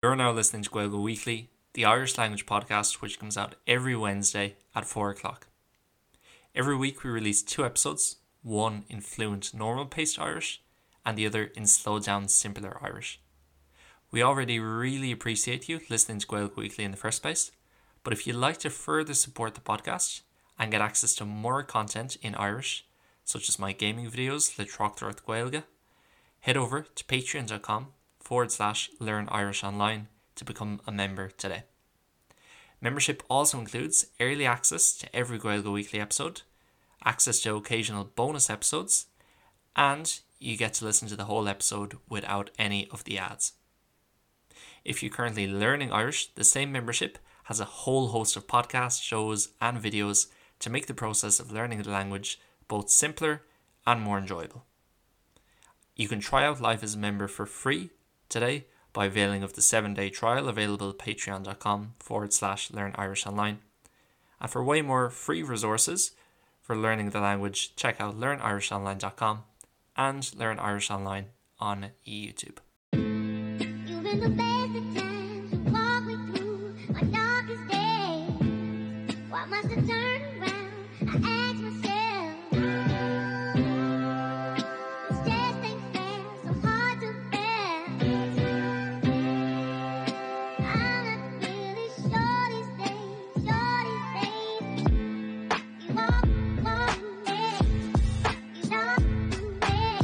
You're now listening to Gaeilge Weekly, the Irish language podcast which comes out every Wednesday at 4 o'clock. Every week we release two episodes, one in fluent normal paced Irish and the other in slow down simpler Irish. We already really appreciate you listening to Gaeilge Weekly in the first place, but if you'd like to further support the podcast and get access to more content in Irish, such as my gaming videos le Tráchtaireacht Gaeilge, head over to patreon.com forward slash learn Irish online to become a member today. Membership also includes early access to every Gaeilge Weekly episode, access to occasional bonus episodes, and you get to listen to the whole episode without any of the ads. If you're currently learning Irish, the same membership has a whole host of podcasts, shows, and videos to make the process of learning the language both simpler and more enjoyable. You can try out life as a member for free today by availing of the 7-day trial available at patreon.com forward slash learn Irish online. And for way more free resources for learning the language, check out learnirishonline.com and Learn Irish Online on YouTube. You've been the best of times. You walk me through my darkest days. Why must I turn around? I ask myself. This just ain't fair, so hard to bear. I'm not really sure these days, sure these days. You walk, walk me, you talk to me. Hard to bear.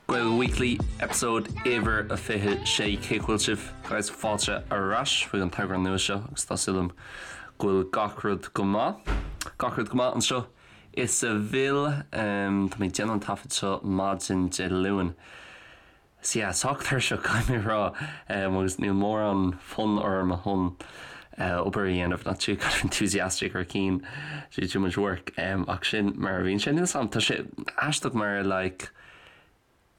Gaeilge Weekly, Episode uimhir a 26 Cén chaoi a bhfuil sibh guys fáilte ar ais chuig an t-eagrán nua seo agus tá súil agam go bhfuil gach rud go maith. Gach rud go maith anseo i Seville. Tá mé ag déanamh an taifead seo maidin Dé Luain. So yeah, sách tuirseach caithfidh mé a rá agus níl mórán fonn orm chun obair a dhéanamh, not too kind of enthusiastic or keen to do too much work ach sin mar a bhíonn sé. Níl 'fhios a'm, tá sé aisteach mar like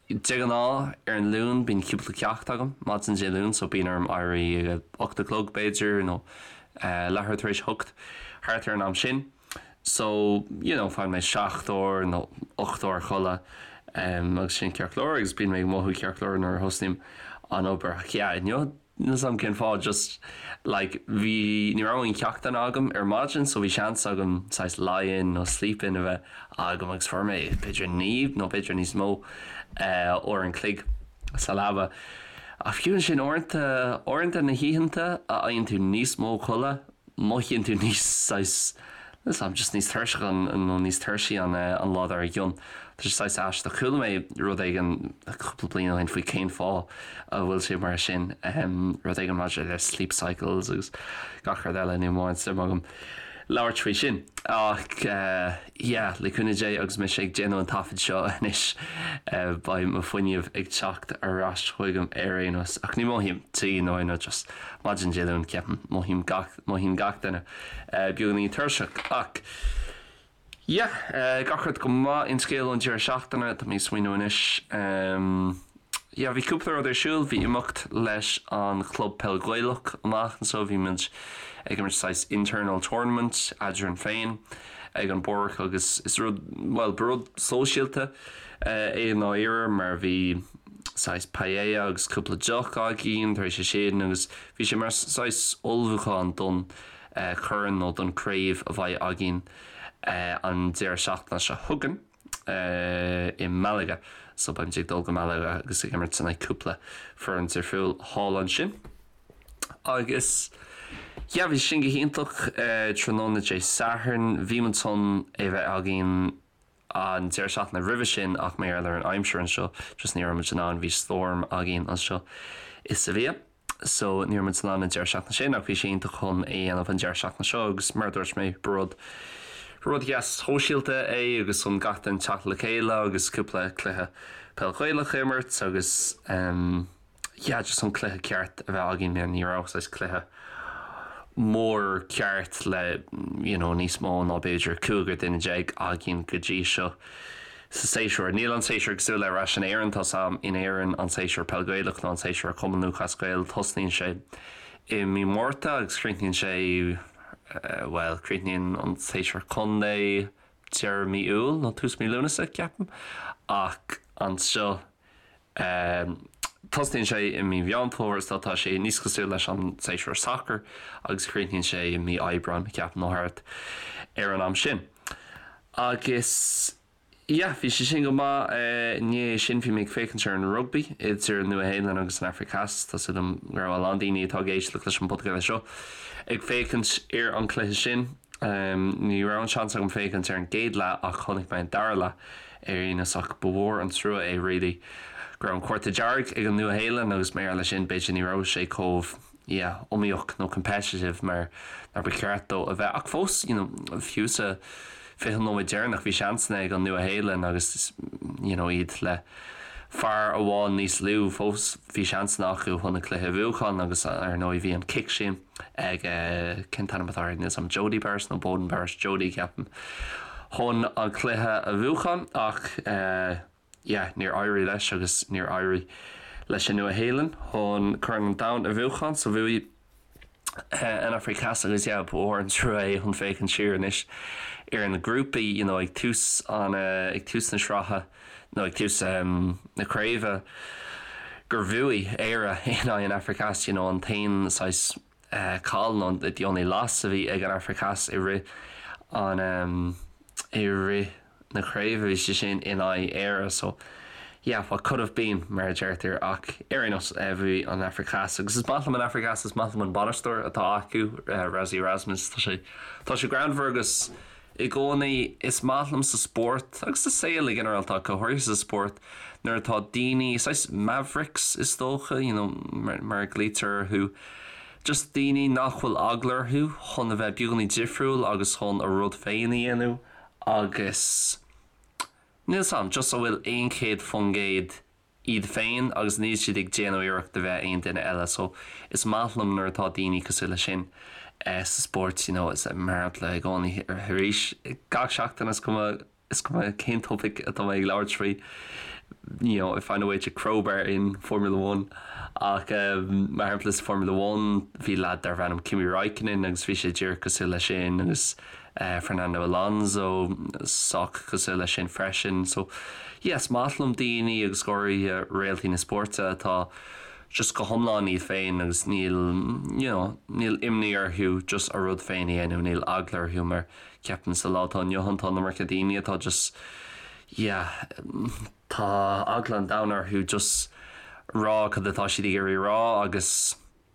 de ghnáth ar an Luan bíonn cúpla ceacht agam maidin Dé Luain so bíonn orm éirí ag a 8 a chlog b'fhéidir nó leathuair tar éis a hocht thart ar an am sin. So, you know, faigheann mé 7 uair nó 8 uair codladh agus sin ceart go leor agus bíonn mé ag mothú ceart go leor nuair a thosnaím an obair. Ach yeah, inniu, níl 'fhios a'm cén fáth, just like bhí, ní raibh aon cheachtanna agam ar maidin so bhí seans agam saghas lie-in nó sleep-in a bheith agam agus fuair mé b'fhéidir 9 nó b'fhéidir níos mó uair an chloig sa leaba. Ach fiú ansin uaireanta, uaireanta na hoícheanta a fhaigheann tú níos mó codladh, mothaíonn tú níos saghas, níl 'fhios a'm, just níos tuirseach nó níos tuirsí an an lá dár gcionn. Tá sé saghas aisteach. Chuala mé rud éigin cúpla bliain ó shin faoi cén fáth a bhfuil sé mar sin, rud éigin maidir le sleep cycles agus gach rud eile, níl mórán suim agam labhairt faoi sin. Ach yeah, le cúnamh Dé agus mise ag déanamh an taifid seo anois, beidh mo fuinneamh ag teacht ar ais chugam ar aon nós. Ach ní mothaím tí nó aon rud, just maidin Dé Luain ceapaim, mothaím gach, mothaíonn gach duine beagáinín tuirseach. Ach yeah, gach rud go maith, aon scéal ón deireadh seachtaine, tá mé ag smaoineamh anois. Yeah, bhí cúpla rud ar siúl, bhí imeacht leis an chlub peil Gaelach amach anseo, bhí muid ag imirt saghas internal tournament eadrainn féin ag an bpáirc agus is rud, bhuel, ba rud sóisialta é i ndáiríre mar bhí saghas paella agus cúpla deoch againn tar éis sin agus bhí sé mar saghas ullmhúchán don chorn nó don craobh a bheidh againn an deireadh seachtaine seo chugainn. i Malaga. So beimid ag dul go Malaga agus ag imirt in aghaidh cúpla foireann difriúil thall ansin. Agus yeah, bhí sin go hiontach tráthnóna Dé Sathairn. Bhí muid chun é bheith againn an deireadh seachtaine roimhe sin ach mar gheall ar an aimsir anseo just ní raibh muid in ann, bhí storm againn anseo i Sevilla. so ní raibh muid in ann an deireadh seachtaine sin ach bhí sé iontach chun é a dhéanamh an deireadh seachtaine seo agus mar a dúirt mé ba rud rud deas sóisialta é agus chun gach duine teacht le chéile agus cúpla cluiche peil Ghaelach a imirt agus um, yeah, just an cluiche ceart a bheith againn ní raibh saghas cluiche mór ceart le you know, níos mó ná b'fhéidir 15 duine againn go dtí seo. Sa séasúr. Níl an séasúr cosúil le ar ais in Éirinn, tá 's a'm, in Éirinn an séasúr Peil Gaelach nó an séasúr Cumann Lúthchleas Gael, tosnaíonn sé i mí Márta agus críochnaíonn sé, bhuel, críochnaíonn an séasúr contae. deireadh mí Iúil nó tús mí Lúnasa, ceapaim, ach anseo tosnaíonn sé i mí Mheán Fómhair so tá sé níos cosúil leis an séasúr sacair agus críochnaíonn sé i mí Aibreáin, ceapaim, nó thart ar an am sin. Agus yeah, bhí sé sin go maith. I ndiaidh sin bhí mé ag féachaint ar an rugbaí idir an Nua-Shéalainn agus an Afraic Theas. Tá súil agam go raibh a lán daoine atá ag éisteacht leis an bpodchraoladh seo ag féachaint ar an cluiche sin. Ní raibh an seans agam féachaint ar an gcéad leath ach chonaic mé an dara leath ar aon nós ach ba mhór an trua é really go raibh an cárta dearg ag an Nua-Shéalainn agus mar gheall leis sin b'fhéidir ní raibh sé chomh yeah iomaíoch nó competitive mar mar ba cheart dó a bheith ach fós you know fiú sa 20 nóiméad deireanach bhí seansanna ag an Nua-Shéalainn agus you know iad le fear amháin níos lú fós bhí seansanna acu chun an cluiche a bhuachan agus ar ndóigh bhí an cic sin ag cén t-ainm atá air níl 's a'm Jodie Burrage nó Beauden Barrett Jodie ceapaim chun an cluiche a bhuachan ach eh yeah, níor éirigh leis agus níor éirigh leis an Nua-Shéalainn chun Corn an Domhain a bhuachan so bhuaigh an Afraic Theas agus yeah, ba mhór an trua é chun féachaint siar anois ar na grúpaí you know, ag tús an ag tús na sraithe nó ag tús um, na craoibhe gur bhuaigh Éire in aghaidh an Afraic Theas you know, an t-aon saghas caill nó the only loss a bhí ag an Afraic Theas i rith an um, i rith na craoibhe bhí sé sin in aghaidh Éire so yeah what could have been mar a deirtear ach ar aon nós bhuaigh an Afraic Theas agus is maith liom an Afraic Theas is maith liom an bainisteoir atá acu Rassie Erasmus tá sé tá sé greannmhar agus i gcónaí is maith liom sa spórt agus sa saol i ginearálta ach go háirithe sa spórt nuair atá daoine saghas mavericks is dócha you know mar mar a ghlaoitear orthu just daoine nach bhfuil eagla orthu chun a bheith beagáinín difriúil agus chun a rud féin a dhéanamh agus níl 's a'm just a bhfuil 100% iad féin agus níl siad ag déanamh iarracht a bheith aon duine eile so is maith liom nuair atá daoine cosúil leis sin sa spórt you know is mar shampla i gcónaí arís gach seachtain is cuma is cuma cén topaic atá mé ag labhairt faoi you know I find a way to crowbar in Formula One ach um, mar shampla sa Formula One bhí lad darbh ainm Kimi Raikkonen agus bhí sé díreach cosúil leis sin agus Fernando Alonso sách cosúil leis sin freisin. So yeah, is maith liom daoine agus go háirithe réaltaí na spóirte atá just go hiomlán iad féin agus níl you know, níl imní orthu just a rud féin a dhéanamh, níl eagla orthu mar ceapaim sa lá atá inniu ann tá an iomarca daoine atá just yeah, tá eagla an domhain orthu just rá cad atá siad ag iarraidh rá agus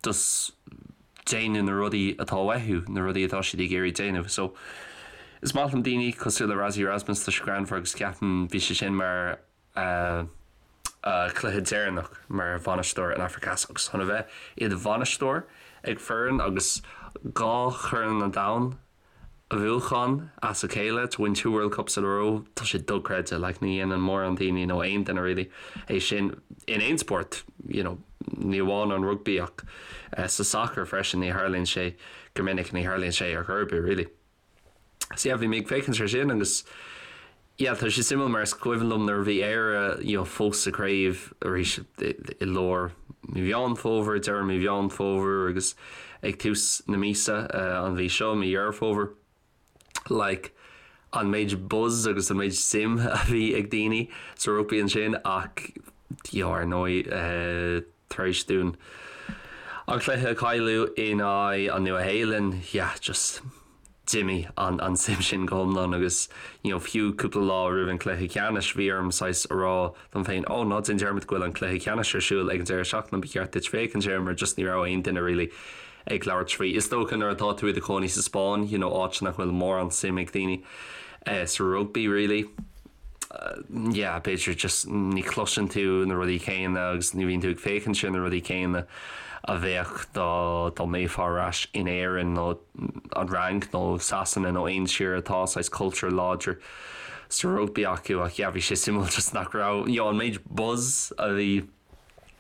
just déanamh na rudaí atá uathu, na rudaí atá siad ag iarraidh déanamh. So, is maith liom daoine cosúil le Rassie Erasmus, tá sé greannmhar agus ceapaim bhí sé sin mar a chluiche deireanach mar bhainisteoir an Afraic Theas agus chun a bheith i do bhainisteoir ag foireann agus dhá Chorn an Domhain a bhuachan as a chéile, to win two World Cups in a row, tá sé dochreidte, like ní dhéanann mórán daoine nó aon duine really é sin in aon spórt, you know, ní amháin an rugbaí ach sa sacar freisin, ní tharlaíonn sé go minic, ní tharlaíonn sé ar chor ar bith really. So yeah, bhí mé ag féachaint ar sin agus Yeah, tá sé suimiúil mar is cuimhin liom nuair a bhí Éire you know, fós sa chraobh arís i lár mí Mheán Fómhair, deireadh mí Mheán Fómhair agus ag tús na míosa an mhí seo, mí Dheireadh Fómhair, like an méid buzz agus an méid suim a bhí ag daoine sa rugbaí ansin ach you know, ar ndóigh tar éis dúinn an cluiche a chailleadh in aghaidh an Nua-Shéalainn, yeah, just d'imigh an an suim sin go hiomlán agus you know fiú cúpla lá roimh an cluiche ceannais bhí orm saghas a rá dom féin oh ná déan dearmad go bhfuil an cluiche ceannais ar siúl ag an deireadh seachtaine ba cheart duit féachaint air mar just ní raibh aon duine really ag labhairt faoi. Is dócha nuair atá tú i do chónaí sa Spáinn you know áit nach bhfuil mórán suim ag daoine eh, sa rugbaí really yeah, b'fhéidir just ní chloiseann tú na rudaí céanna agus ní bhíonn tú ag féachaint ar na rudaí céanna a bheadh dá dá mbeifeá ar ais in Éirinn nó an Fhrainc nó Sasana nó aon tír atá saghas cultúr láidir sa rugbaí acu ach yeah, bhí sé suimiúil just nach raibh you know, an méid buzz a bhí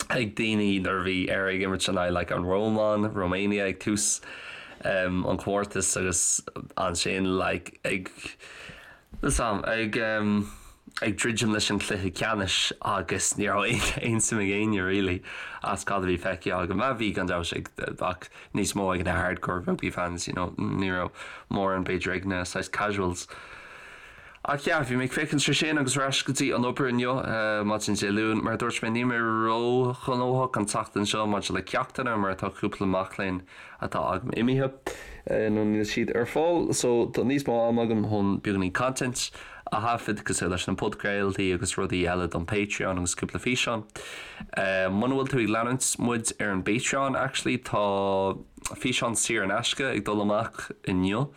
ag daoine nuair a bhí Éire ag imirt in aghaidh like an Rómáin, Romania ag tús um, an chomórtais agus ansin like ag Sam, ag um, ag druidim leis an chluiche ceannais agus ní raibh aon suim ag éinne really as cad a bhí feicthe agam. Bhí gan dabht ag ach níos mó ag na hardcore rugby fans, you know, ní raibh mórán b'fhéidir ag na saghas casuals. Ach yeah, bhí mé ag féachaint ar sin agus ar ais go dtí an obair inniu, maidin Dé Luain. Mar a dúirt mé, níl mé ró-ghnóthach an tseachtain seo maidir le ceachtanna mar tá cúpla mac léinn atá agam imithe nó níl siad ar fáil so tá níos mó ama agam chun beagáinín content a thaifead cosúil leis na podchraoltaí agus rudaí eile don Patreon agus cúpla físeán. Muna bhfuil tú ag leanúint muid ar an bPatreon actually tá físeán saor in aisce ag dul amach inniu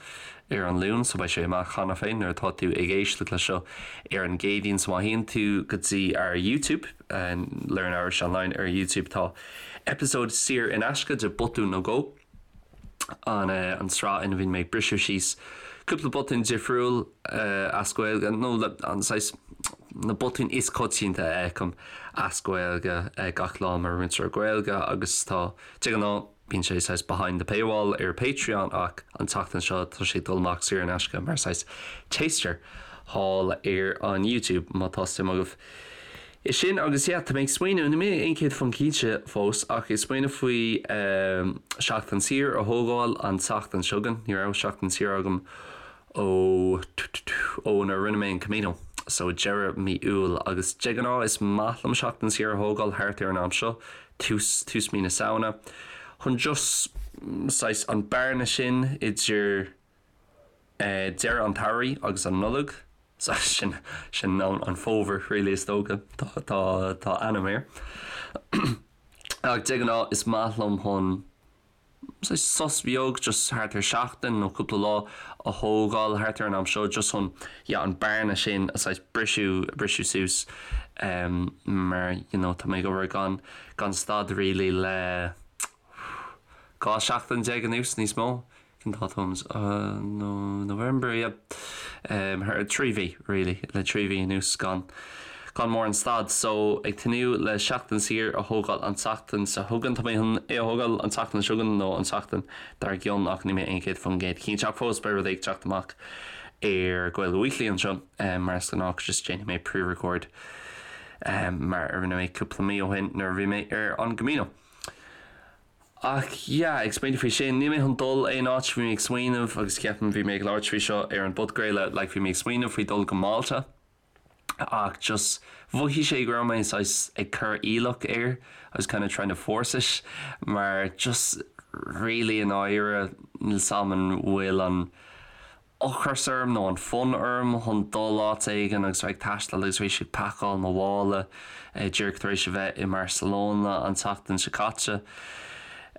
ar an Luan so beidh sé amach cheana féin nuair atá tú ag éisteacht le seo ar an gCéadaoin so má théann tú go dtí ár YouTube, Learn Irish Online ar YouTube tá episode saor in aisce de Botún nó Dhó, an an tsraith ina bhíonn mé ag briseadh síos cúpla botún difriúil as Gaeilge nó an saghas na botúin is coitianta a fheicim as Gaeilge gach lá mar mhúinteoir Gaeilge agus tá de ghnáth Bíonn sé saghas behind the paywall ar Patreon ach an tseachtain seo tá sé ag dul amach saor in aisce mar saghas taster thall ar an YouTube má tá suim agaibh i sin. Agus yeah, tá mé ag smaoineamh, níl mé 100% cinnte fós ach ag smaoineamh faoi seachtain saor a thógáil an tseachtain seo chugainn. Ní raibh seachtain saor agam ó ó nuair a rinne mé an Camino so deireadh mí Iúil agus de ghnáth is maith liom seachtain saor a thógáil thart ar an am seo, tús tús mí na Samhna, chun just saghas an bearna sin idir deireadh an tsamhraidh agus an Nollaig, sin sin an fómhar really is dócha, tá tá tá ainm air. Ach de ghnáth is maith liom chun saghas sos beag just thart ar seachtain nó cúpla lá a thógáil thart ar an am seo just chun yeah an bearna sin a saghas briseadh briseadh suas mar you know tá mé ag obair gan gan stad really le 12 seachtain anuas níos mó. Cén dáta no November yeah thar 3 mhí really le 3 mhí anuas gan gan mórán stad so ag tnúth le seachtain saor a thógáil an tseachtain seo chugainn. Tá mé chun é a thógáil an tseachtain seo chugainn nó an tseachtain dár gcionn ach níl mé 100% cinnte ach fós beidh rud ag teacht amach ar Gaeilge Weekly anseo mar is gnách just déanfaidh mé pre-record mar a rinne mé cúpla mí ó shin nuair a bhí mé ar an gCamino. Ach yeah, ag smaoineamh faoi sin, níl mé chun dul aon áit, bhí mé ag smaoineamh agus ceapaim bhí mé ag labhairt faoi seo ar an bpodchraoladh, like bhí mé ag smaoineamh faoi dul go Málta ach just mhothaigh sé go raibh mé saghas ag cur iallach air, I was kind of trying to force it mar just really i ndáiríre níl 's a'm an bhfuil an ocras orm nó an fonn orm chun dul áit éigin agus bheith ag taisteal agus tar éis ag pacáil mo mhála díreach tar éis a bheith i mBarcelona an tseachtain seo caite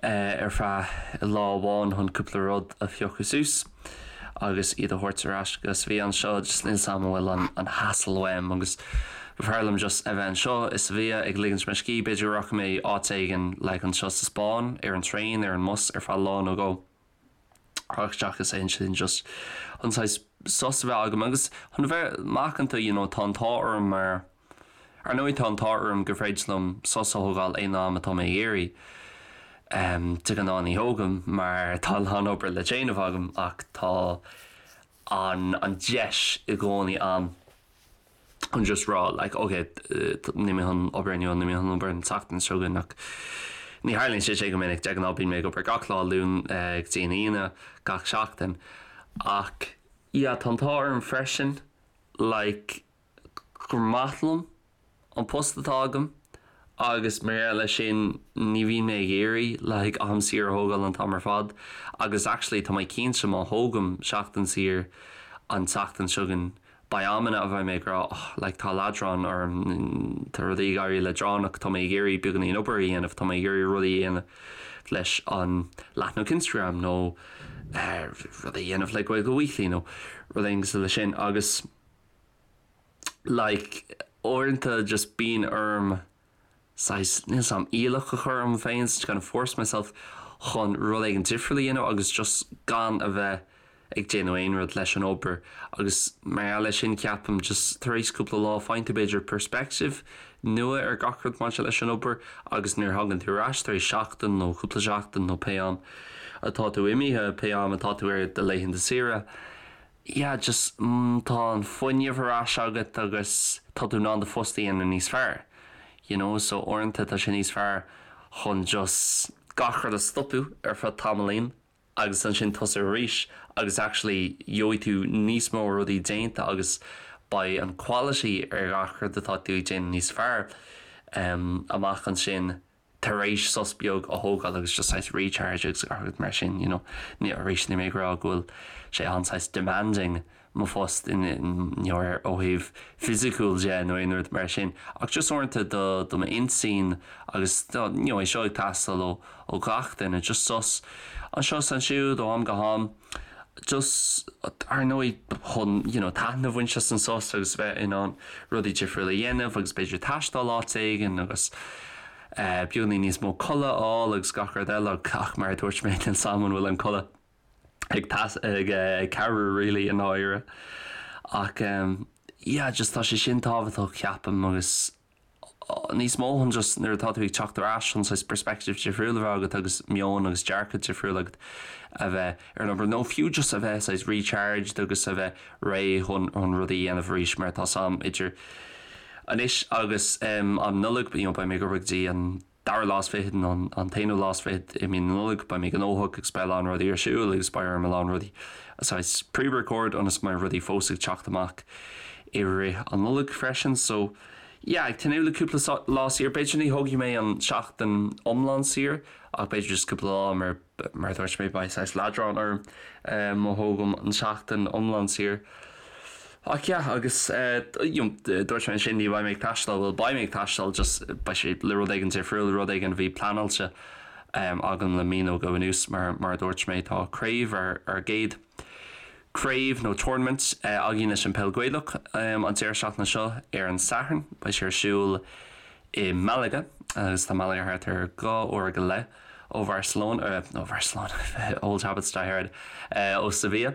ar feadh lá amháin chun cúpla rud a phiocadh suas agus iad a thabhairt ar ais go Sevilla anseo just níl 's a'm an bhfuil an an hassle uaim agus b'fhearr liom just a bheith anseo i Sevilla ag ligint mo scíth b'fhéidir go rachaidh mé áit éigin like anseo sa Spáinn ar an traein ar an mbus ar feadh lá nó dhó. Ach seachas aon sin just an saghas sos a bheith agam agus chun a bheith macánta you know tá an t-ádh orm mar ar ndóigh tá an t-ádh orm gur féidir liom sos a thógáil aon am atá mé ag iarraidh. De ghnáth ní thógaim mar tá a lán obair le déanamh agam ach tá an an deis i gcónaí a'm. chun just rá like ok níl mé chun obair inniu níl mé chun obair an tseachtain seo chugainn ach ní tharlaíonn sé sin go minic de ghnáth bíonn mé ag obair gach lá Luan go dtí an Aoine gach seachtain ach yeah tá an t-ádh orm freisin like gur maith liom an post atá agam agus mar gheall leis sin ní bhíonn mé ag iarraidh like am saor a thógáil an t-am ar fad agus actually tá mé cinnte má thógaim seachtain saor an tseachtain seo chugainn beidh amanna a bheidh mé ag rá oh like tá leadrán orm tá rudaí ag éirí leadránach tá mé ag iarraidh beagáinín obair a dhéanamh tá mé ag iarraidh rudaí a dhéanamh leis an leathanach Instagram nó eh, rudaí a dhéanamh le Gaeilge Weekly nó rud éigin cosúil leis sin agus like uaireanta just bíonn orm saghas, níl 's a'm, iallach a chur orm féin, to kind of force myself chun rud éigin difriúil a dhéanamh agus just gan a bheith ag déanamh aon rud leis an obair agus mar gheall leis sin ceapaim just tar éis cúpla lá faigheann tú b'fhéidir perspective nua ar gach rud maidir leis an obair agus nuair a thagann tú ar ais tar éis seachtain nó cúpla seachtain nó pé am atá tú imithe, pé am atá tú ar do laethanta saoire, yeah just tá an fuinneamh ar ais agat agus tá tú in ann do phost a dhéanamh níos fearr you know so uaireanta tá sé níos fearr chun just gach rud a stopadh ar feadh tamaillín. agus ansin tosú arís agus actually gheobhaidh tú níos mó rudaí déanta agus beidh an quality ar gach rud atá tú ag déanamh níos fearr amach ansin tar éis sos beag a thógáil agus just saghas recharge agus gach rud mar sin you know. Ní arís níl mé ag rá go bhfuil sé an-saghas demanding mo phost in you know ó thaobh fisiciúil de nó aon rud mar sin ach just uaireanta do do m'intinn agus do you know é seo ag teastáil ó ó gach duine just sos anseo is ansiúd ó am go ham just ar ndóigh chun you know taitneamh a bhaint as an sos agus bheith in ann rudaí difriúla a dhéanamh agus b'fhéidir taisteal áit éigin agus eh beagáinín níos mó codladh a fháil agus gach rud eile ach mar a dúirt mé níl 's a'm an bhfuil an codladh ag ag ag cabhrú really i ndáiríre ach em yeah just tá sé sin tábhachtach ceapaim agus níos mó chun just nuair atá tú ag teacht ar ais chun saghas perspective difriúil a bheith agat agus meon agus dearcadh difriúil agat a bheith ar an obair nó fiú just a bheith saghas recharged agus a bheith réidh chun chun rudaí a dhéanamh arís mar tá 's a'm idir anois agus um, an Nollaig you know, beidh mé ag obair go dtí an dara lá is fichead nó an t-aonú lá is fichead i mí na Nollag, beidh mé gnóthach agus beidh a lán rudaí ar siúl agus beidh orm a lán rudaí a saghas pre-record ionas go mbeidh rudaí fós ag teacht amach i rith an Nollaig freisin. So yeah, ag tnúth le cúpla lá saor, b'fhéidir ní thógfaidh mé an seachtain iomlán saor ach b'fhéidir just cúpla lá mar Mar a dúirt mé, beidh saghas leadrán orm má thógaim an tseachtain iomlán saor. Ach yeah, agus you know, dúirt mé ansin ní bheidh mé ag taisteal, bhuel beidh mé ag taisteal, just beidh sé le rud éigin difriúil, rud éigin a bhí pleanáilte agam le mí nó dhó anuas mar mar a dúirt mé tá craobh ár ár gcéad craobh nó tournament againn leis an Peil Gaelach an deireadh seachtaine seo ar an Satharn. Beidh sé ar siúl i Malaga agus tá Malaga thart ar 2 uair go leith ó Bharcelona, ó Bharcelona, old habits die hard, ó Sevilla.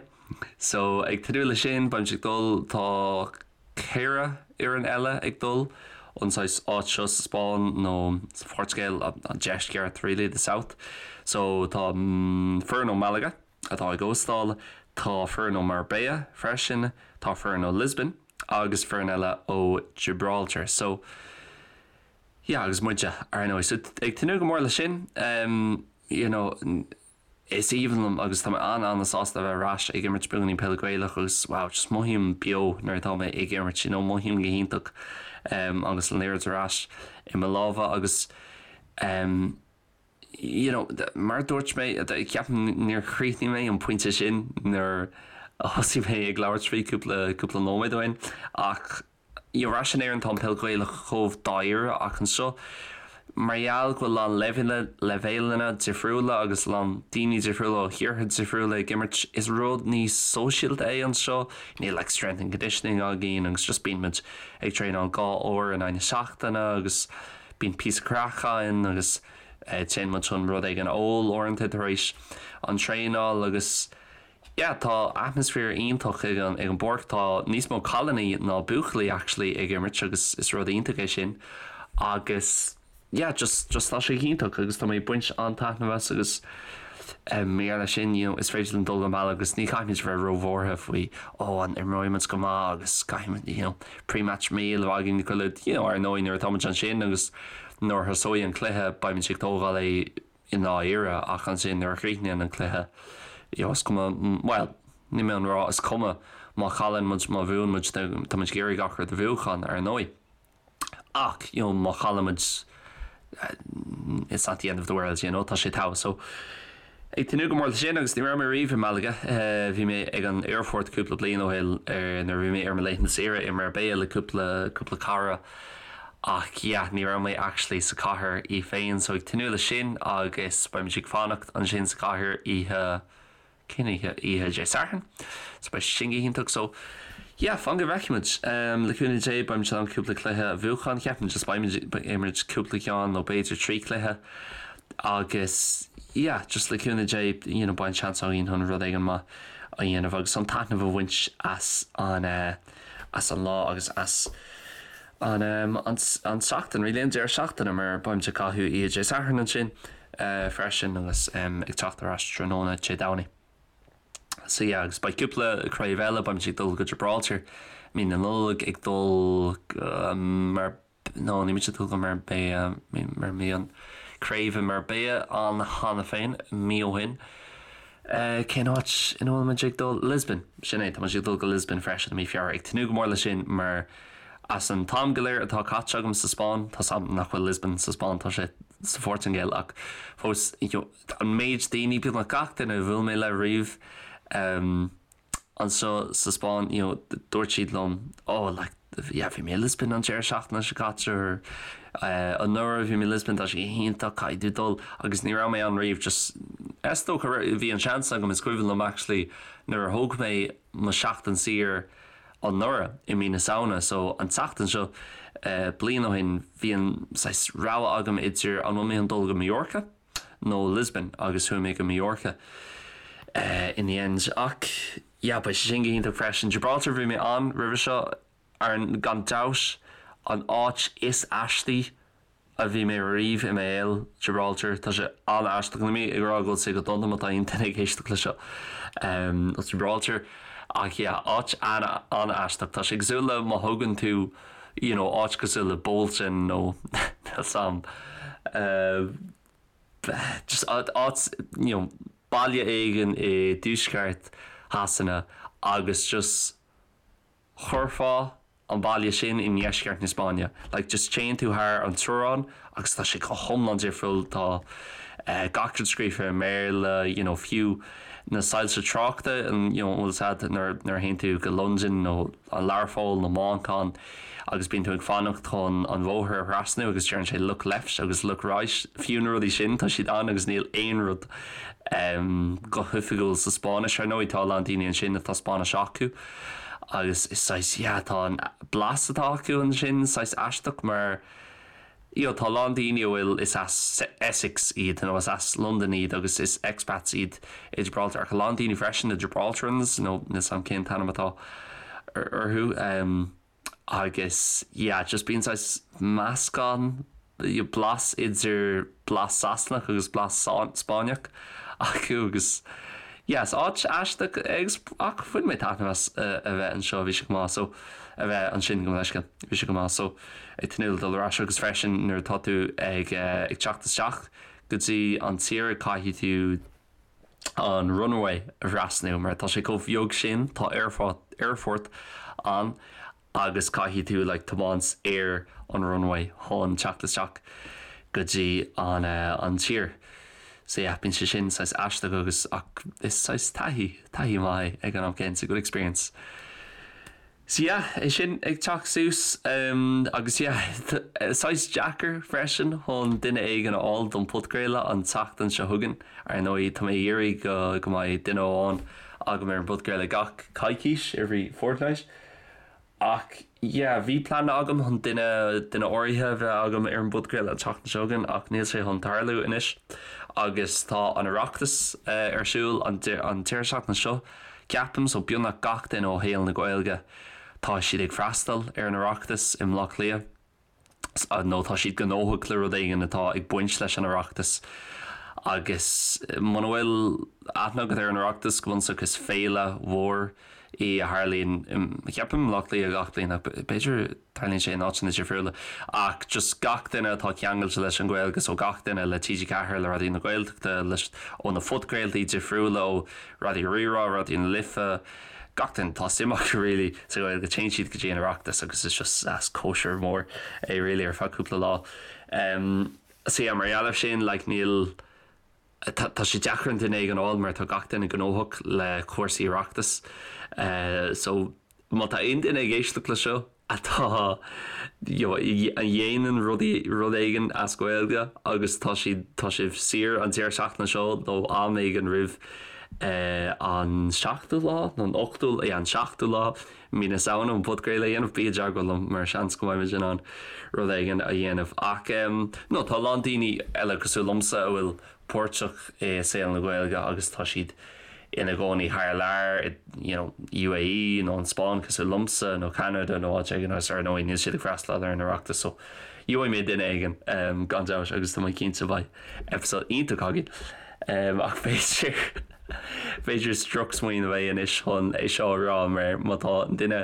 So ag tnúth le sin, beimid ag dul, tá ceithre fhoireann eile ag dul ón saghas áit seo sa Spáinn nó sa Phortaingéil, an deisceart really, the south. So tá foireann ó Malaga atá ag óstáil, tá foireann ó Marbella freisin, tá foireann ó Lisbon agus foireann eile ó Gibraltar. So yeah agus muide ar ndóigh. So ag tnúth go mór leis sin you know is aoibhinn liom agus tá mé an-an-sásta a bheith ar ais ag imirt beagáinín peile Gaelach agus wow just mothaím beo nuair atá mé ag imirt you know mothaím go hiontach agus an liathróid ar ais i mo lámha agus you know mar a dúirt mé ceapaim níor chríochnaigh mé an pointe sin nuair a thosaigh mé ag labhairt faoi cúpla cúpla nóiméad ó shin ach you know ar ais in Éirinn tá an peil Ghaelach chomh dáiríre ach anseo mar gheall go bhfuil a lán leibhéalanna difriúla agus a lán daoine difriúla ó thíortha difriúla ag imirt is rud níos sóisialta é anseo níl like strength and conditioning againn agus just bíonn muid ag traenáil 2 uair in aghaidh na seachtaine agus bíonn píosa craic againn agus téann muid chun rud éigin a ól uaireanta tar éis an traenáil agus yeah tá atmaisféar iontach ag an ag an bpáirc tá níos mó cailíní ná buachaillí actually ag imirt agus is rud iontach é sin agus yeah just just tá sé iontach agus tá mé ag baint an-taitneamh as agus mar gheall air sin you know is féidir linn dul go Malaga agus ní chaithfimid a bheith róbhuartha faoi oh an imreoidh muid go maith agus caithfimid you know pre-match meal a bheith againn go you know ar ndóigh nuair atá muid ansin agus nuair a thosóidh an cluiche beimid ag tógáil é i ndáiríre ach ansin nuair a chríochnaíonn an cluiche you know is cuma bhuel níl mé chun rá is cuma má chailleann muid má bhuann muid tá muid ag iarraidh gach rud a bhuachan ar ndóigh ach you know má chailleann muid it's not the end of the world you know tá sé togha so ag tnúth go mór leis sin agus ní raibh mé riamh i Malaga bhí mé ag an aerfort cúpla bliain ó shin nuair a bhí mé ar mo laethanta saoire i Marbella le cúpla cúpla cara Ach yeah, ní raibh mé actually sa chathair í féin, so ag tnúth leis sin agus beimid ag fanacht ansin sa chathair oíche, cén oíche? Oíche Dé Sathairn. So beidh sin go hiontach. So yeah, fan go bhfeicfimid. Le cúnamh Dé beimid in ann cúpla cluiche a bhuachan, ceapaim just beimid ag imirt cúpla ceann nó b'fhéidir 3 cluiche agus yeah, just le cúnamh Dé you know beidh an seans againn chun rud éigin maith a dhéanamh agus an taitneamh a bhaint as an eh, as an lá agus as an an tseachtain, really, an deireadh seachtaine mar beimid ag caitheamh oíche Dé Sathairn ansin freisin agus ag teacht ar ais tráthnóna Dé Domhnaigh. So yeah, agus beidh cúpla craobh eile, beimid ag dul go Gibraltar mí na Nollag, ag dul go mar nó níl muid ag dul go Marbella mar bhí an craobh i Marbella ann cheana féin mí ó shin. Cén áit ina bhfuil muid ag dul? Lisbon! Sin é, tá muid ag dul go Lisbon freisin i mí Feabhra. Ag tnúth go mór leis sin mar as an t-am go léir atá caite agam sa Spáinn, tá 's agam nach bhfuil Lisbon sa Spáinn, tá sé sa Phortaingéil ach fós, you know, an méid daoine, beagnach gach duine a bhuail mé le riamh, anseo sa Spáinn, you know, dúirt siad liom, oh, like, yeah, bhí mé i Lisbon an deireadh seachtaine seo caite or eh, anuraidh bhí mé i Lisbon, tá sé iontach, caithfidh tú dul agus ní raibh mé ann riamh, just, is dócha, bhí an seans agam, is cuimhin liom actually nuair a thóg mé mo sheachtain saor anuraidh i mí na Samhna, so an tseachtain seo, eh, bliain ó shin, bhí an saghas rogha agam idir an bhfuil mé chun dul go Mallorca, nó Lisbon agus chuaigh mé go Mallorca in the end. Ach yeah, beidh sé sin go hiontach freisin. Gibraltar, bhí mé ann roimhe seo, ar gan dabht an áit is aistí a bhí mé riamh i mo shaol, Gibraltar. Tá sé an-aisteach. Níl mé ag rá go bhfuil sé go dona má tá aon duine ag éisteacht le seo as Gibraltar. Ach yeah, áit an-aisteach. Tá sé cosúil le má thógann tú you know, áit cosúil le Bolton nó níl 's a'm, just áit, you know, baile éigin i dtuaisceart Shasana agus just chuirfeá an baile sin i ndeisceart na Spáinne. Like just téann tú thar an teorainn agus tá sé go hiomlán difriúil, tá gach rud scríofa i mBéarla, you know, fiú na soilse tráchta, you know, an bhfuil 's a'd nuair a théann tú go Londain nó an Learpholl nó Manchain agus bíonn tú ag fanacht chun an bhóthar a thrasnú agus deireann sé look left agus look right, fiú na rudaí sin tá siad ann agus níl aon rud go hoifigiúil sa Spáinnis. Ar ndóigh tá a lán daoine ansin atá Spáinnis acu agus is saghas yeah tá an blas atá acu ansin saghas aisteach mar you know, tá a lán daoine a bhfuil, is as Essex iad nó is as Londain iad agus is expats iad i Gibraltar ach a lán daoine freisin, na Gibraltarans nó níl 's a'm cén t-ainm atá orthu agus yeah, just bíonn saghas meascán, blas idir blas Sasanach agus blas Spáinneach acu agus yeah, is áit aisteach agus ach bhain mé taitneamh as a bheith anseo, bhí sé go maith so a bheith ansin gabh mo leithscéal, bhí sé go maith so. ag tnúth le dul ar ais agus freisin nuair atá tú ag ag teacht isteach go dtí an tír caithfidh tú an runway a thrasnú mar tá sé chomh beag sin tá aerfort aerfort ann agus caithfidh tú like tiomáint ar an runway chun teacht isteach go dtí an an tír. So yeah, bíonn sé sin saghas aisteach agus ach is saghas taithí taithí maith é ag an am céanna, it's a good experience. So yeah, é sin ag teacht suas agus yeah, saghas deacair freisin chun duine éigin a fháil don podchraoladh an tseachtain seo chugainn. Ar ndóigh, tá mé ag iarraidh go go mbeidh duine amháin agam ar an bpodchraoladh gach coicís, every fortnight. Ach yeah, bhí plean agam chun duine duine áirithe a bheith agam ar an bpodchraoladh an tseachtain seo chugainn ach níl sé chun tarlú anois. Agus tá an Oireachtas ar siúl an an deireadh seachtaine seo. Ceapaim, so beagnach gach duine ó shaol na Gaeilge, tá siad ag freastal ar an Oireachtas i mBleá Cliath, nó tá siad gnóthach le rud éigin atá ag baint leis an Oireachtas. Agus muna bhfuil aithne agat ar an Oireachtas, go bunúsach is féile mhór í a tharlaíonn, ceapaim, i mBleá Cliath gach bliain, ach b'fhéidir, Tarlaíonn sé in áiteanna difriúla. Ach just gach duine atá ceangailte leis an Ghaeilge, so gach duine le TG4, le Raidió na Gaeltachta, leis, ó na phodchraoltaí difriúla, ó Raidió Rí-Rá, Raidió na Life, gach duine atá suim acu really sa Ghaeilge, téann siad go dtí an Oireachtas agus is just as cóisir mhór é really ar feadh cúpla lá. Um, so yeah, mar gheall air sin, like, níl, tá sé deacair an duine éigin a fháil mar tá gach duine gnóthach le cúrsaí Oireachtais. Uh, so Má tá aon duine ag éisteacht le seo atá you know a dhéanann rudaí rud éigin as Gaeilge agus tá siad tá sibh saor an deireadh seachtaine seo nó am éigin roimh an seachtú lá nó an ochtú yeah an seachtú lá mí na Samhna an podchraoladh a dhéanamh bí i dteagmháil liom mar seans go mbeidh muid in ann rud éigin a dhéanamh ach no tá a lán daoine eile cosúil liomsa a bhfuil páirteach i saol na Gaeilge agus tá siad ina gcónaí thar lear i you know UAE nó an Spáinn cosúil liomsa nó Ceanada nó áit éigin agus ar ndóigh níl siad ag freastal ar an Oireachtas so gheobhaidh mé duine éigin gan dabht agus tá mé cinnte beidh episode iontach againn ach b'fhéidir b'fhéidir is drochsmaoineamh é anois chun é seo a rá mar má tá an duine.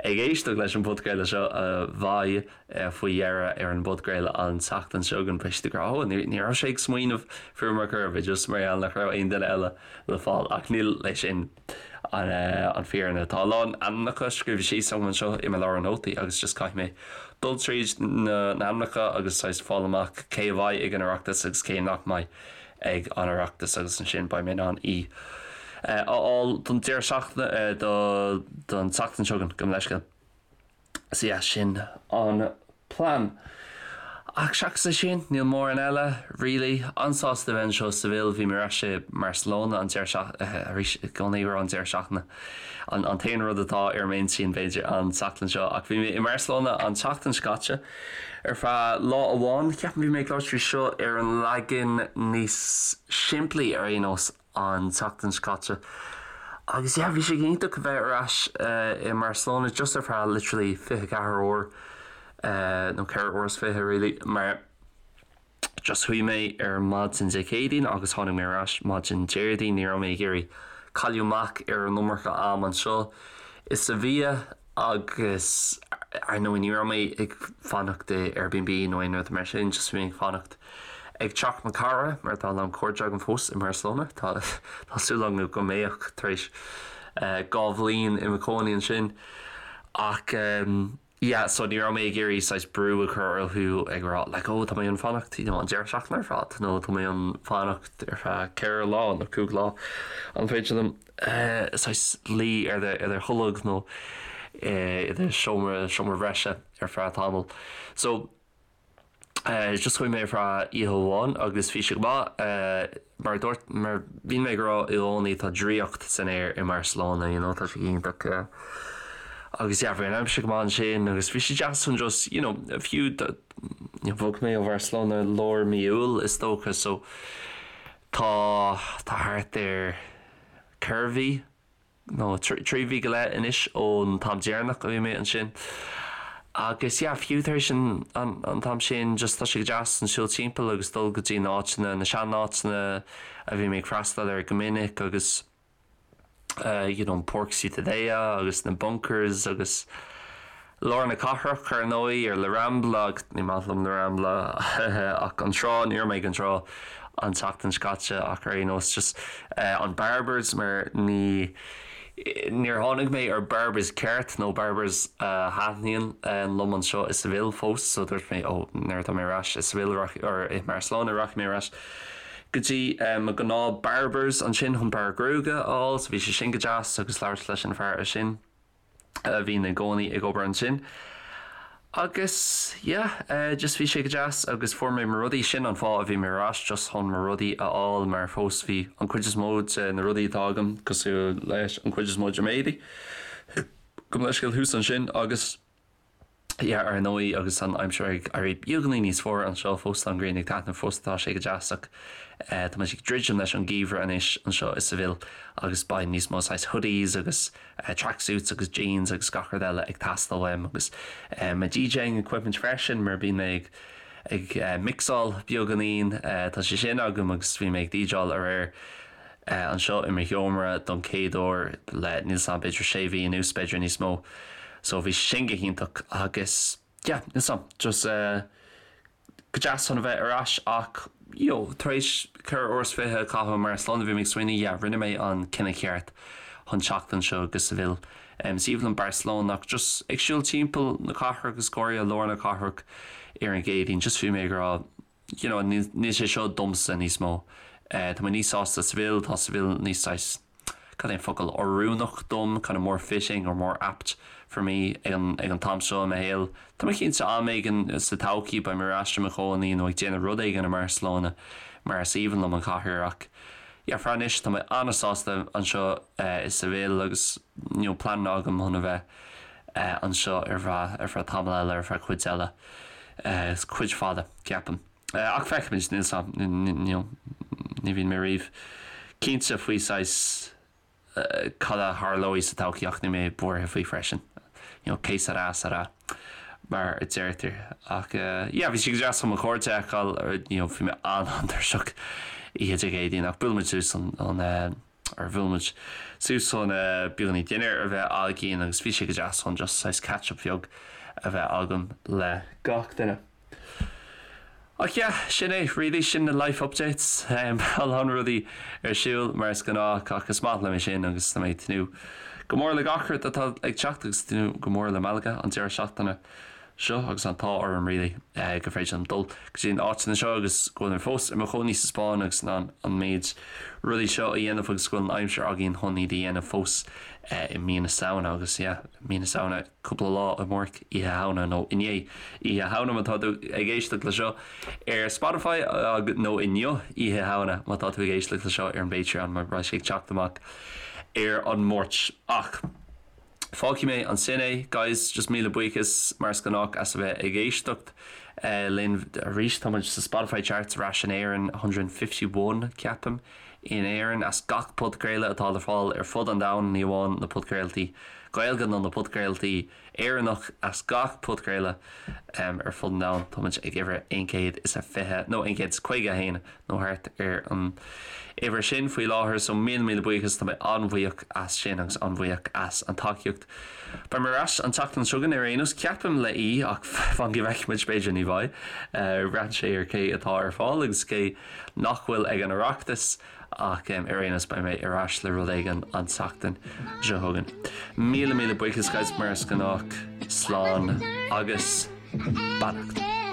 ag éisteacht leis an bpodchraoladh seo a bheidh faoi dheireadh ar an bpodchraoladh an tseachtain seo chugainn, beidh siad ag rá, 'Ó, ní raibh sé ag smaoineamh fúm ar chor ar bith, just mar gheall nach raibh aon duine eile le fáil. Ach níl é sin an fhírinne. Tá a lán ainmneacha scríofa síos agam anseo i mo leabhar nótaí agus just caithfidh mé dul tríd na hainmneacha agus saghas fáil amach cé a bheidh ag an Oireachtas agus cé nach mbeidh ag an Oireachtas agus ansin beidh mé in ann í a fháil don deireadh seachtaine, don tseachtain seo chugainn, gabh mo leithscéal. So yeah, sin an plean. Ach seachas é sin, níl mórán eile, really. An-sásta a bheith anseo i Seville, bhí mé ar ais i mBarcelona an deireadh seachtaine, arís, i gcónaí ag rá an deireadh seachtaine, an an t-aon rud atá ar m'intinn, b'fhéidir, an tseachtain seo. Ach bhí mé i mBarcelona an tseachtain seo caite ar feadh lá amháin. Ceapaim bhí mé ag labhairt faoi seo ar an leagan níos simplí ar aon nós. an tseachtain seo caite agus yeah bhí sé go hiontach a bheith ar ais i mBarcelona just ar feadh literally 24 uair nó 4 uair is 20 really mar just chuaigh mé ar maidin Dé Céadaoin agus tháinig mé ar ais maidin Déardaoin ní raibh mé ag iarraidh cailleadh amach ar an iomarca am anseo i Sevilla Agus ar ndóigh ní raibh mé ag fanacht i Airbnb nó aon rud mar sin, just bhí mé ag fanacht ag teach mo cara mar tá a lán cairde agam fós i mBarcelona. Tá tá súil agam go mbeadh tar éis 2 bhliain i mo chónaí ansin. Ach yeah, so ní raibh mé ag iarraidh saghas brú a chur orthu ag rá like oh tá mé chun fanacht you know an deireadh seachtaine ar fad nó tá mé chun fanacht ar feadh 4 lá nó 5 lá. An féidir liom saghas luí ar do tholg nó i do seomra, seomra bhreise ar feadh tamaill. So, just chuaigh mé ar feadh oíche amháin agus bhí sé go maith. Mar a dúirt, mar bíonn mé ag rá i gcónaí tá draíocht san aer i mBarcelona, you know, tá sé iontach. Agus yeah, bhí an aimsir go maith ansin agus bhí sé deas chun just, you know, fiú bhog mé ó Bharcelona lár mí Iúil is dócha so tá, tá thart ar, 4 mhí, nó 3 mhí go leith anois ón t-am deireanach a bhí mé ansin. Agus yeah, fiú tar éis an an t-am sin, just tá sé go deas an siúl timpeall agus dul go dtí na áiteanna, na seanáiteanna a bhí mé ag freastal air go minic agus you know, an Páirc Ciutadella agus na bunkers agus lár na cathrach ar ndóigh, ar La Rambla agus ní maith liom La Rambla ach an trá, ní raibh mé ag an trá an tseachtain seo caite ach ar aon nós just an Barbers mar ní níor tháinig mé ar Barbers ceart nó Barbers a thaitníonn liom anseo i Seville fós so dúirt mé ó nuair atá mé ar ais i Seville or i mBarcelona rachaidh mé ar ais go dtí mo ghnáth Barbers ansin chun bearradh gruaige a fháil so bhí sé sin go deas agus labhairt leis an fear sin. a bhíonn i gcónaí ag obair ansin. Agus yeah, just bhí sé go deas agus fuair mé mo rudaí, sin an fáth a bhí mé ar ais, just chun mo rudaí a fháil mar fós bhí an cuid is mó de na rudaí atá agam cosúil leis an cuid is mó de m'éadaí, gabh mo leithscéal thuas ansin agus. Yeah, ar ndóigh, agus an aimsir ag éirí beagáinín níos fuaire anseo fós, tá an ghrian ag taitneamh fós, tá sé go deas ach tá muid ag druidim leis an gheimhreadh anois anseo i Seville agus beidh níos mó saghas hoodies agus tracksuits agus jeans agus gach rud eile ag teastáil uaim agus mo DJing equipment freisin mar bíonn mé ag ag mixáil beagáinín, tá sé sin agam agus bhí mé ag DJáil aréir. anseo i mo sheomra don chéad uair le, níl 's a'm, b'fhéidir sé mhí anuas, b'fhéidir níos mó. So bhí sin go hiontach agus yeah, níl 's a'm, just go deas chun a bheith ar ais ach you know, tar éis 24 uair a chaitheamh i mBarcelona bhí mé ag smaoineamh yeah, rinne mé an cinneadh ceart chun teacht anseo go Seville. Is aoibhinn liom Barcelona ach just ag siúl timpeall na cathrach agus go háirithe lár na cathrach ar an gCéadaoin, just bhí mé ag rá you know, níl sé seo domsa níos mó. Tá mé níos sásta Seville, tá Seville níos saghas, cad é an focal, oiriúnach dom, kind of more fitting or more apt for me ag an, ag an t-am seo i mo shaol. Tá mé cinnte am éigin sa todhchaí beidh mé ar ais i mo chónaí nó ag déanamh rud éigin i mBarcelona mar is aoibhinn liom an chathair ach yeah, for anois tá mé an-sásta anseo i Seville agus you know, pleananna agam chun a bheith anseo ar feadh, ar feadh tamall eile, ar feadh cuid eile. Is cuid fada, ceapaim. Ach feicfimid, níl 's a'm, ní bhíonn mé riamh cinnte faoi saghas cad a tharlóidh sa todhchaí ach níl mé buartha faoi freisin. You know, que sera, sera, mar a deirtear. Ach yeah, bhí sé go deas chun mo chairde a fheiceáil, you know, bhí mé an-an-tuirseach oíche Dé Céadaoin ach buailfidh muid suas an. Ar bhuail muid suas chun beagáinín dinnéar a bheith againn agus bhí sé go deas chun just saghas catch up bheag a bheith agam le gach duine. Ach yeah, sin é really, sin na life updates. A lán rudaí ar siúl mar is gnách ach is maith liom é sin agus tá mé ag tnúth go mór le gach rud atá ag teacht agus tnúth go mór le Malaga an deireadh seachtaine seo agus an t-ádh orm really gur féidir liom dul go dtí na áiteanna seo agus go bhfuil mé fós i mo chónaí sa Spáinn agus in ann an méid rudaí seo a dhéanamh agus go bhfuil an aimsir againn chun iad a dhéanamh fós i mí na Samhna agus yeah, mí na Samhna cúpla lá amárach Oíche Shamhna nó inné Oíche Shamhna má tá tú ag éisteacht le seo ar Spotify nó inniu Oíche Shamhna má tá tú ag éisteacht le seo ar an bPatreon mar beidh sé ag teacht amach ar an Máirt. Ach fágfaidh mé ansin é guys, just míle buíochas mar is gnách as a bheith ag éisteacht linn arís. Tá muid sa Spotify charts ar ais in Éirinn, 151 ceapaim in Éirinn as gach podchraoladh atá le fáil ar fud an domhain, ní amháin na podchraoltaí Gaeilge nó na podchraoltaí Éireannach, as gach podchraoladh ar fud an domhain. Tá muid ag uimhir 120 nó 151 nó thart ar an uimhir sin faoi láthair so míle míle buíochas, tá mé an-bhuíoch as sin agus an-bhuíoch as an tacaíocht. Beidh mé ar ais an tseachtain seo chugainn ar aon nós, ceapaim le aoi ach fan go bhfeicfidh muid, b'fhéidir ní bheidh. Braitheann sé ar cé atá ar fáil agus cé nach bhfuil ag an Oireachtas ach ar aon nós beidh mé ar ais le rud éigin an tseachtain seo chugainn. Míle míle buíochas guys mar is gnách, slán agus beannacht.